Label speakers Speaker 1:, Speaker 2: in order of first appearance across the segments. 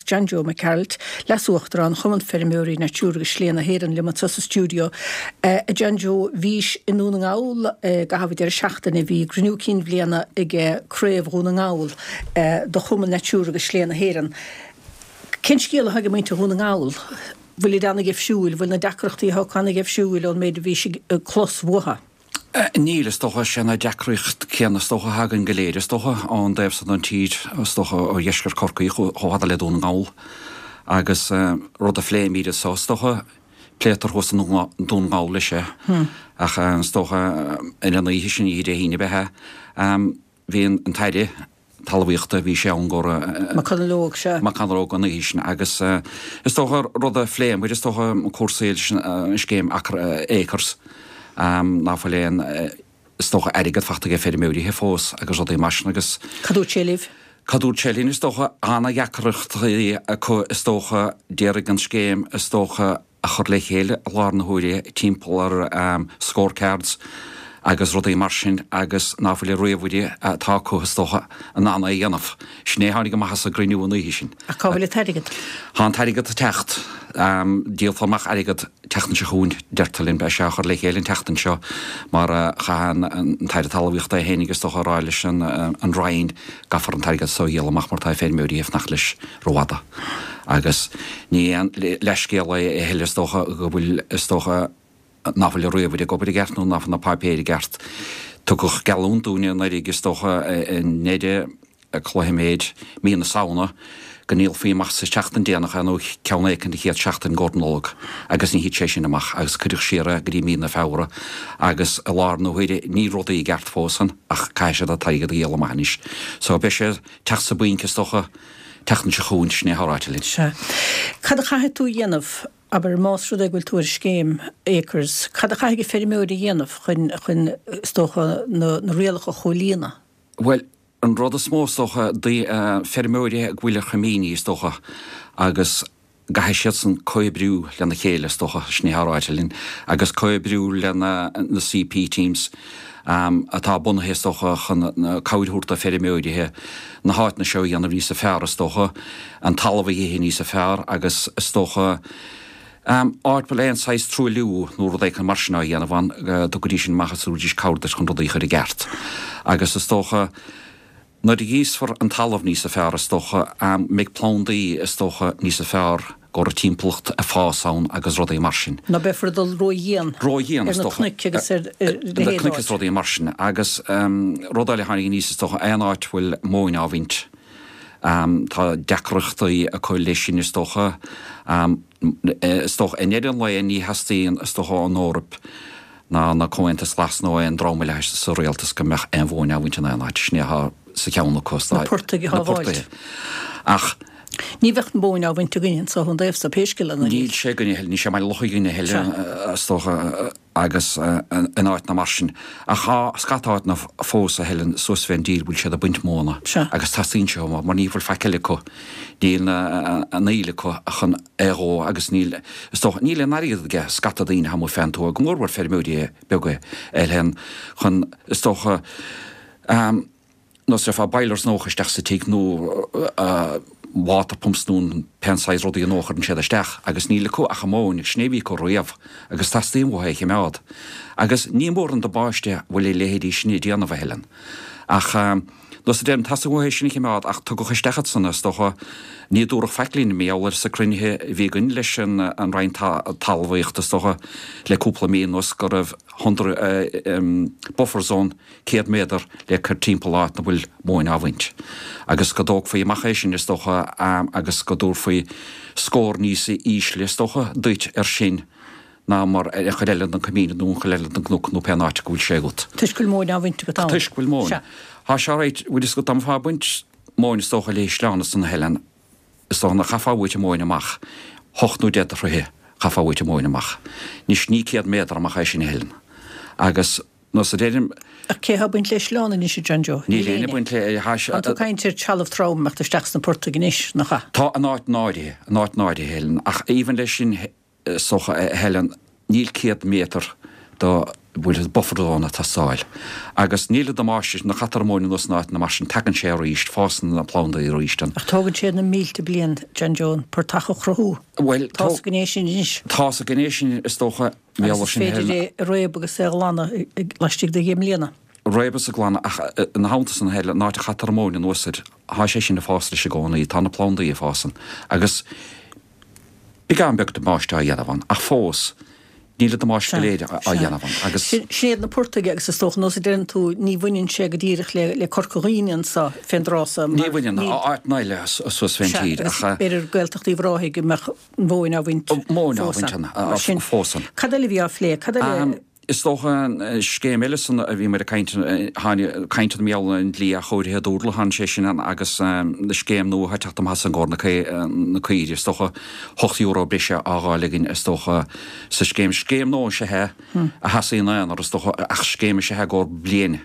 Speaker 1: John Joe Mac Gearailt, Leas-Uachtarán Chumann Feirmeoirí Natura agus Slé na hÉireann liom anseo sa stiúideo. A John Joe, bhís i nDún na nGall i gcaitheamh an deireadh seachtaine, bhí cruinniú cinn bhliana ag Craobh Dhún na nGall do Chumann Natura agus Slé na hÉireann. Cén scéal atá ag muintir Dhún na nGall? Bhfuilid ana-gheimhsiúil? Bhfuil na deacrachtaí atá acu ana-gheimhsiúil ón méid a bhís ag clos uathu?
Speaker 2: Níl, is dócha. Sé na deacracht céanna is dócha atá againn go léir, is dócha, ón dtaobh san den tír, is dócha, ó dheisceart Chorcaí chomh fada le Dún na nGall. Agus rud a phléimid anso, is dócha, pléitear thuas i nDún na nGall leis é. Ach is dócha, ar an oíche sin, oíche Dé hAoine ab ea é, bhí an tAire Talmhaíochta, bhí sé ann go raibh.
Speaker 1: McConalogue, sea.
Speaker 2: McConalogue an oíche sin agus is dócha rud a phléamar, is dócha cúrsaí leis an scéim Acres, ná fuil aon, is dócha airgead fachta ag feirmeoirithe fós agus rudaí mar sin agus.
Speaker 1: Cad dúirt sé libh?
Speaker 2: Cad dúirt sé linn, is dócha, ana-dheacrachtaí acu is dócha, d'iarraidh an scéim is dócha, a chur le chéile i láthair na huaire timpeall ar scorecards agus rudaí mar sin agus ná fuil an ríomhaire atá acu is dócha in ann é a dhéanamh. Sin é a tháinig amach as an gcruinniú an oíche sin.
Speaker 1: Ach cá bhfuil an t-airgead?
Speaker 2: Tá an t-airgead ag teacht. Díolfar amach airgead tseachtain seo chugainn, deirtear linn. Beidh sé á chur le chéile an tseachtain seo mar chaith an tAire Talmhaíochta é féinig is dócha a rá leis an Roinn gcaithfear an t-airgead so a dhíol amach mar tá feirmeoirí ag fanacht leis rófhada. Agus ní aon leithscéal é a thuilleadh is dócha go bhfuil, is dócha, nach bhfuil an ríomhaire ag obair i gceart nó nach bhfuil na páipéir i gceart. Tugadh geallúint dúinne anuraidh is dócha i ndeireadh cloiche mí na Samhna go ndíolfaí amach sa tseachtain déanach é nó ceann éicint an chéad seachtain i gcomhair Nollag agus ní thit sé sin amach agus cuireadh siar é go dtí mí na Feabhra agus i láthair na huaire níl rudaí i gceart fós ann ach caithfidh siad an t-airgead a dhíol amach anois. So beidh sé ag teacht sa bpointe is dócha tseachtain seo chugainn, sin é atá ráite linn.
Speaker 1: Sea. Cad a chaithfidh tú a dhéanamh, abair, más rud é go bhfuil tú ar scéim Acres, cad a chaithfidh an feirmeoir a dhéanamh chun, chun, is dócha, na, na rialacha a chomhlíonadh?
Speaker 2: Bhuel, an rud is mó, is dócha, feirmeoirí go bhfuil ar choimíní, is dócha, agus gcaithfidh siadsan comhoibriú lena chéile, is dócha, sin é atá ráite linn, agus comhoibriú le na CP teams atá bunaithe, is dócha, chun cabhair a thabhairt do feirmeoirithe na háiteanna seo a dhéanamh níosa fearr, is dócha, an talamh a dh'ithe níosa fearr agus, is dócha, áit a bhfuil aon saghas truailliú nó rud éicint mar sin á dhéanamh ann, go dtugfaidís sin amach agus thabharfaidís cabhair duit chun rudaí a chur i gceart. Agus, is dócha. Nuair a ghríosfar an talamh níosa fearr, is dócha, mbeidh plandaí, is dócha, níosa fearr go raibh timpeallacht ag fás ann agus rudaí mar sin.
Speaker 1: Ná beifear ag dul ró-dhian
Speaker 2: Ró-dhian,
Speaker 1: ar
Speaker 2: is
Speaker 1: na
Speaker 2: dócha.
Speaker 1: cnoic agus ar a
Speaker 2: Na
Speaker 1: leithéid
Speaker 2: cnoic is
Speaker 1: áit.
Speaker 2: rudaí mar sin. Agus rud eile a tháinig aníos, is dócha, aon áit a bhfuil móin á bhaint, tá deacrachtaí acu leis sin, is dócha. Is dócha, i ndeireadh an lae, ní theastaíonn, is dócha, ón Eoraip ná na Comhaontas Glas nó aon dream eile sa rialtas go mbeadh aon mhóin á bhaint in aon áit. Sin é atá sa cheann acu.
Speaker 1: Na portaigh a
Speaker 2: Na
Speaker 1: shábháilt.
Speaker 2: portaigh. Ach.
Speaker 1: Ní bheadh móin á bhaint againne anso ón dtaobh so, pé scéal é ná
Speaker 2: Níl sé againne a thuilleadh, níl sé i mBaile Locha againne a thuilleadh, is dócha, agus in áiteanna mar sin. Ach tá scata áiteanna fós a Helen suas fén dtír bhfuil siad ag baint móna agus teastaíonn sé uathu mar ní bhfuil faic eile acu. Níl an fhuíoll acu chun é a dhó agus níl, is dócha, níl aon airgead aige scata daoine amuigh fén tuath, go mór mhór feirmeoirí beaga a Helen, chun, is dócha, nós déarfá boilers nua a chur isteach sa tigh nó water pumps nó pén saghas rudaí nua a chuireann siad isteach agus níl acu ach an mhóin agus sin é a bhí acu riamh agus teastaíonn uathu é a chimeád. Agus ní mór an damáiste a bhfuil a leithéidí sin ag déanamh a Helen. Ach nós a deirim, teastaíonn uathu é sin a chimeád ach tugadh isteach iad san, is dócha, ní dúradh faic linn, mar gheall air sa cruinnithe a bhí againn leis an Roinn Talmhaíochta is dócha le cúpla mí anuas go raibh hundred buffer zone 100 méadar le cur timpeall áit 'na bhfuil móin á bhaint. Agus go dtógfaí amach é sin, is dócha, agus go dtabharfaí scór níos ísle, is dócha, duit ar sin ná mar ar an chuid eile den coimín nó an chuid eile den gcnoc nó pén áit go bhfuil sé agat.
Speaker 1: Toisc go bhfuil móin á bhaint agat ann.
Speaker 2: Toisc go bhfuil móin.
Speaker 1: Sea.
Speaker 2: Tá sé right, bhfuil fhios agat, dá mbeifeá ag baint móin, is dócha, le hísleán ansan a Helen, is dócha nach chaithfeá uait an mhóin amach, hocht nó deich de throithe chaithfeá uait an mhóin amach. Anois ní 100 méadar amach é sin a Helen. Agus. Nós a deirim.
Speaker 1: Ach cé atá ag baint le sleán anois, a John Joe?
Speaker 2: Níl éinne ag baint le.
Speaker 1: Tá tú ag caint ar trealamh trom imeacht isteach sna portaigh anois, nach ea?
Speaker 2: Tá, in áit áirithe, in áit áirithe, Helen, ach even leis sin, is dócha, a Helen, níl 100 méadar do. Bhfuil buffer zone ag teastáil. Agus níl an damáiste, nuair a chaitear an mhóin anuas in áiteanna mar sin, tagann sé arís, fásann na plandaí arís.
Speaker 1: Ach tógann sé na mílte bliain, John Joe, an portach a chruthú.
Speaker 2: Bhuel,
Speaker 1: Tá 'fhios againn é sin anois.
Speaker 2: Tá 'fhios againn é sin, is dócha,
Speaker 1: Agus is féidir é a réabadh agus é a ghlanadh laistigh de dheich mbliana.
Speaker 2: Réabadh is a ghlanadh ach ina theannta san a thuilleadh, an áit a chaitear an mhóin anuas air, tá sé sin ag fás leis i gcónaí, tá na plandaí ag fás ann. Agus beagán beag damáiste á dhéanamh ann, ach fós, Níl an damáiste go léir á dhéanamh ann agus.
Speaker 1: Sin iad na portaigh agus is dócha, nós a deireann tú, ní bhaineann sé go díreach le Corca Dhuibhne anso fén dtráth so
Speaker 2: mar. Ní bhaineann, áiteanna eile suas fén tír
Speaker 1: ach. Sea, agus b'fhéidir Gaeltacht Uíbh Ráthaigh go mbeadh an mhóin á bhaint
Speaker 2: Móin á bhaint ann fós
Speaker 1: ann. Cad eile a bhí á phlé? Cad eile?
Speaker 2: Is dócha an scéim eile san a bhí muid ag caint, tháinig caint ar mar gheall ar an dlí athchóirithe dúrla, tháinig sé sin ann agus na scéim nua atá ag teacht amach as an gcomhair na caoirigh, is dócha €8 breise á dh'fháil againn is dócha sa scéim. Scéim nua is ea é a sheasaigh ina aonar is dócha ach scéim is ea é i gcomhair bliain.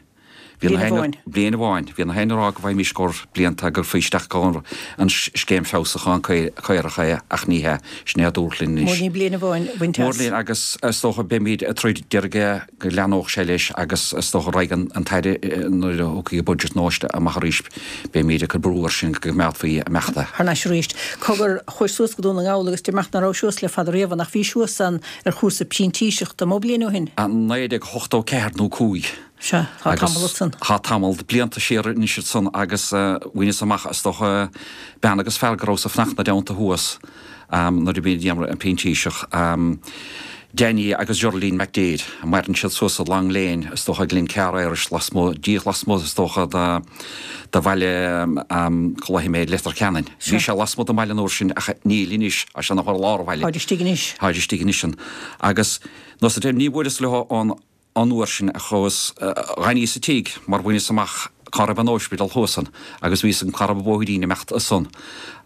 Speaker 1: Bliain amháin.
Speaker 2: Bliain amháin. Bhí na héinne ag rá go bhfaighimís i gcomhair blianta go gcuirfí isteach i gcomhair an scéim feabhsúcháin caorach é ach ní hea. Sin é a dúradh linn
Speaker 1: anois. Mór linn bliain amháin a bhaint as.
Speaker 2: Mór linn agus is dócha beimid ag troid d'iarraidh go leathnódh sé leis agus is dócha raghaidh an tAire nuair a thiocfaidh an budget nua amach arís beimid ag cur brú air sin go gcoimeádfaí imeachta.
Speaker 1: Thar n-ais arís. Cogar, chuais suas go Dún na nGall agus deir mé nach raibh suas le fada riamh ach bhís thuas ann ar chúrsa printíseachta, mó bliain ó shin?
Speaker 2: 1984 nó 5.
Speaker 1: Sea, tá tamall ansan.
Speaker 2: Tá tamall de blianta siar anois ansan agus bhaineas amach, is dócha, bean agus fear go rabhas ag fanacht 'na dteannta thuas nuair a bhí an printíseach, Danny agus Geraldine McDaid, maireann siad suas i Long Lane, is dócha, Glencar Irish, lasmuigh, díreach lasmuigh, is dócha, de bhaile, cá luafaidh mé, Leitir Ceanainn. Bhí sé lasmuigh den bhaile an uair sin ach níl anois, tá sé ina lár an bhaile.
Speaker 1: Táid istigh anois.
Speaker 2: Táid istigh anois ann. Agus, nós a deir, ní bhfuaireas leo an. An uair sin a chuas, dh'fhanaíos sa tigh mar bhaineas amach cá raibh an óispidéal thuas ann agus bhí fhios agam cá raibh an bóithrín imeacht ansan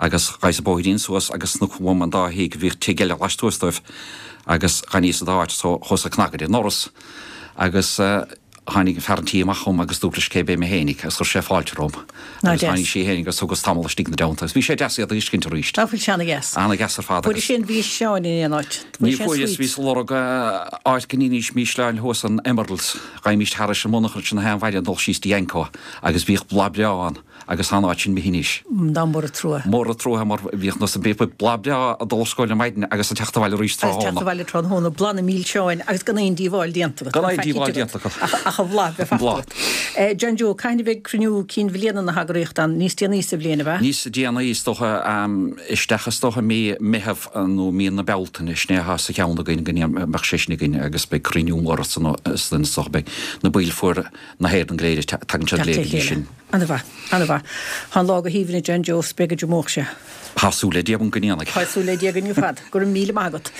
Speaker 2: agus ghabhas an bóithrín suas agus snoc uaim an dá thigh, bhíodh tigh eile laistuas dóibh agus dh'fhanaíos sa dá áit so chuas ag cnagadh ar an ndoras agus tháinig fear an tí amach chugam agus dúirt leis cé b'é mé fhéinig agus chuir sé fáilte romham agus tháinig sí fhéinig agus thugas tamall istigh 'na dteannta agus bhí sé deas iad a fheiscint arís.
Speaker 1: Nach bhfuil sé ana-dheas?
Speaker 2: Ana-dheas ar fad
Speaker 1: agus. Fuairis aon mhísleáin in aon áit?
Speaker 2: Ní fuaireas, bhíos ag lorg áit go n-ídís mísleáin thuas in Emeralds, ghabhaimis thairis an monarcha ansin na haon mhaidin ag dul síos dtí Anco agus bhíodh bláth breá ann agus tá an áit sin imithe anois.
Speaker 1: Nach mór an trua.
Speaker 2: Mór an trua mar bhíodh nós bhíodh bláth breá ag dul ar scoil ar maidin agus ag teacht abhaile arís
Speaker 1: tráthnóna. Agus teacht abhaile tráthnóna, bláth na mílseáin agus gan aon díobháil déanta
Speaker 2: agat. Gan aon díobháil déanta agat.
Speaker 1: Ach an bhláth bheith fachta agat. John Joe, cathain a bheidh cruinniú cinn bhliana na heagraíochta ann? Níos déanaí sa bhliain, ab
Speaker 2: ea? Níos déanaí is dócha, isteach is dócha mí Meitheamh. nó mí na Bealtaine, sin é atá sa cheann againn go mbeadh sé sin againn agus beidh cruinniú mór ansan is dócha beidh na baill foirne na hÉireann go léir tagann siad go léir go dtí sin.
Speaker 1: Ana-mhaith, ana-mhaith. Tá an lá go haoibhinn a John Joe, 's beidh go deo sé.
Speaker 2: Tá súil le Dia agam go ndéanfaidh.
Speaker 1: Tá súil le Dia againn ar fad. Go raibh míle maith agat.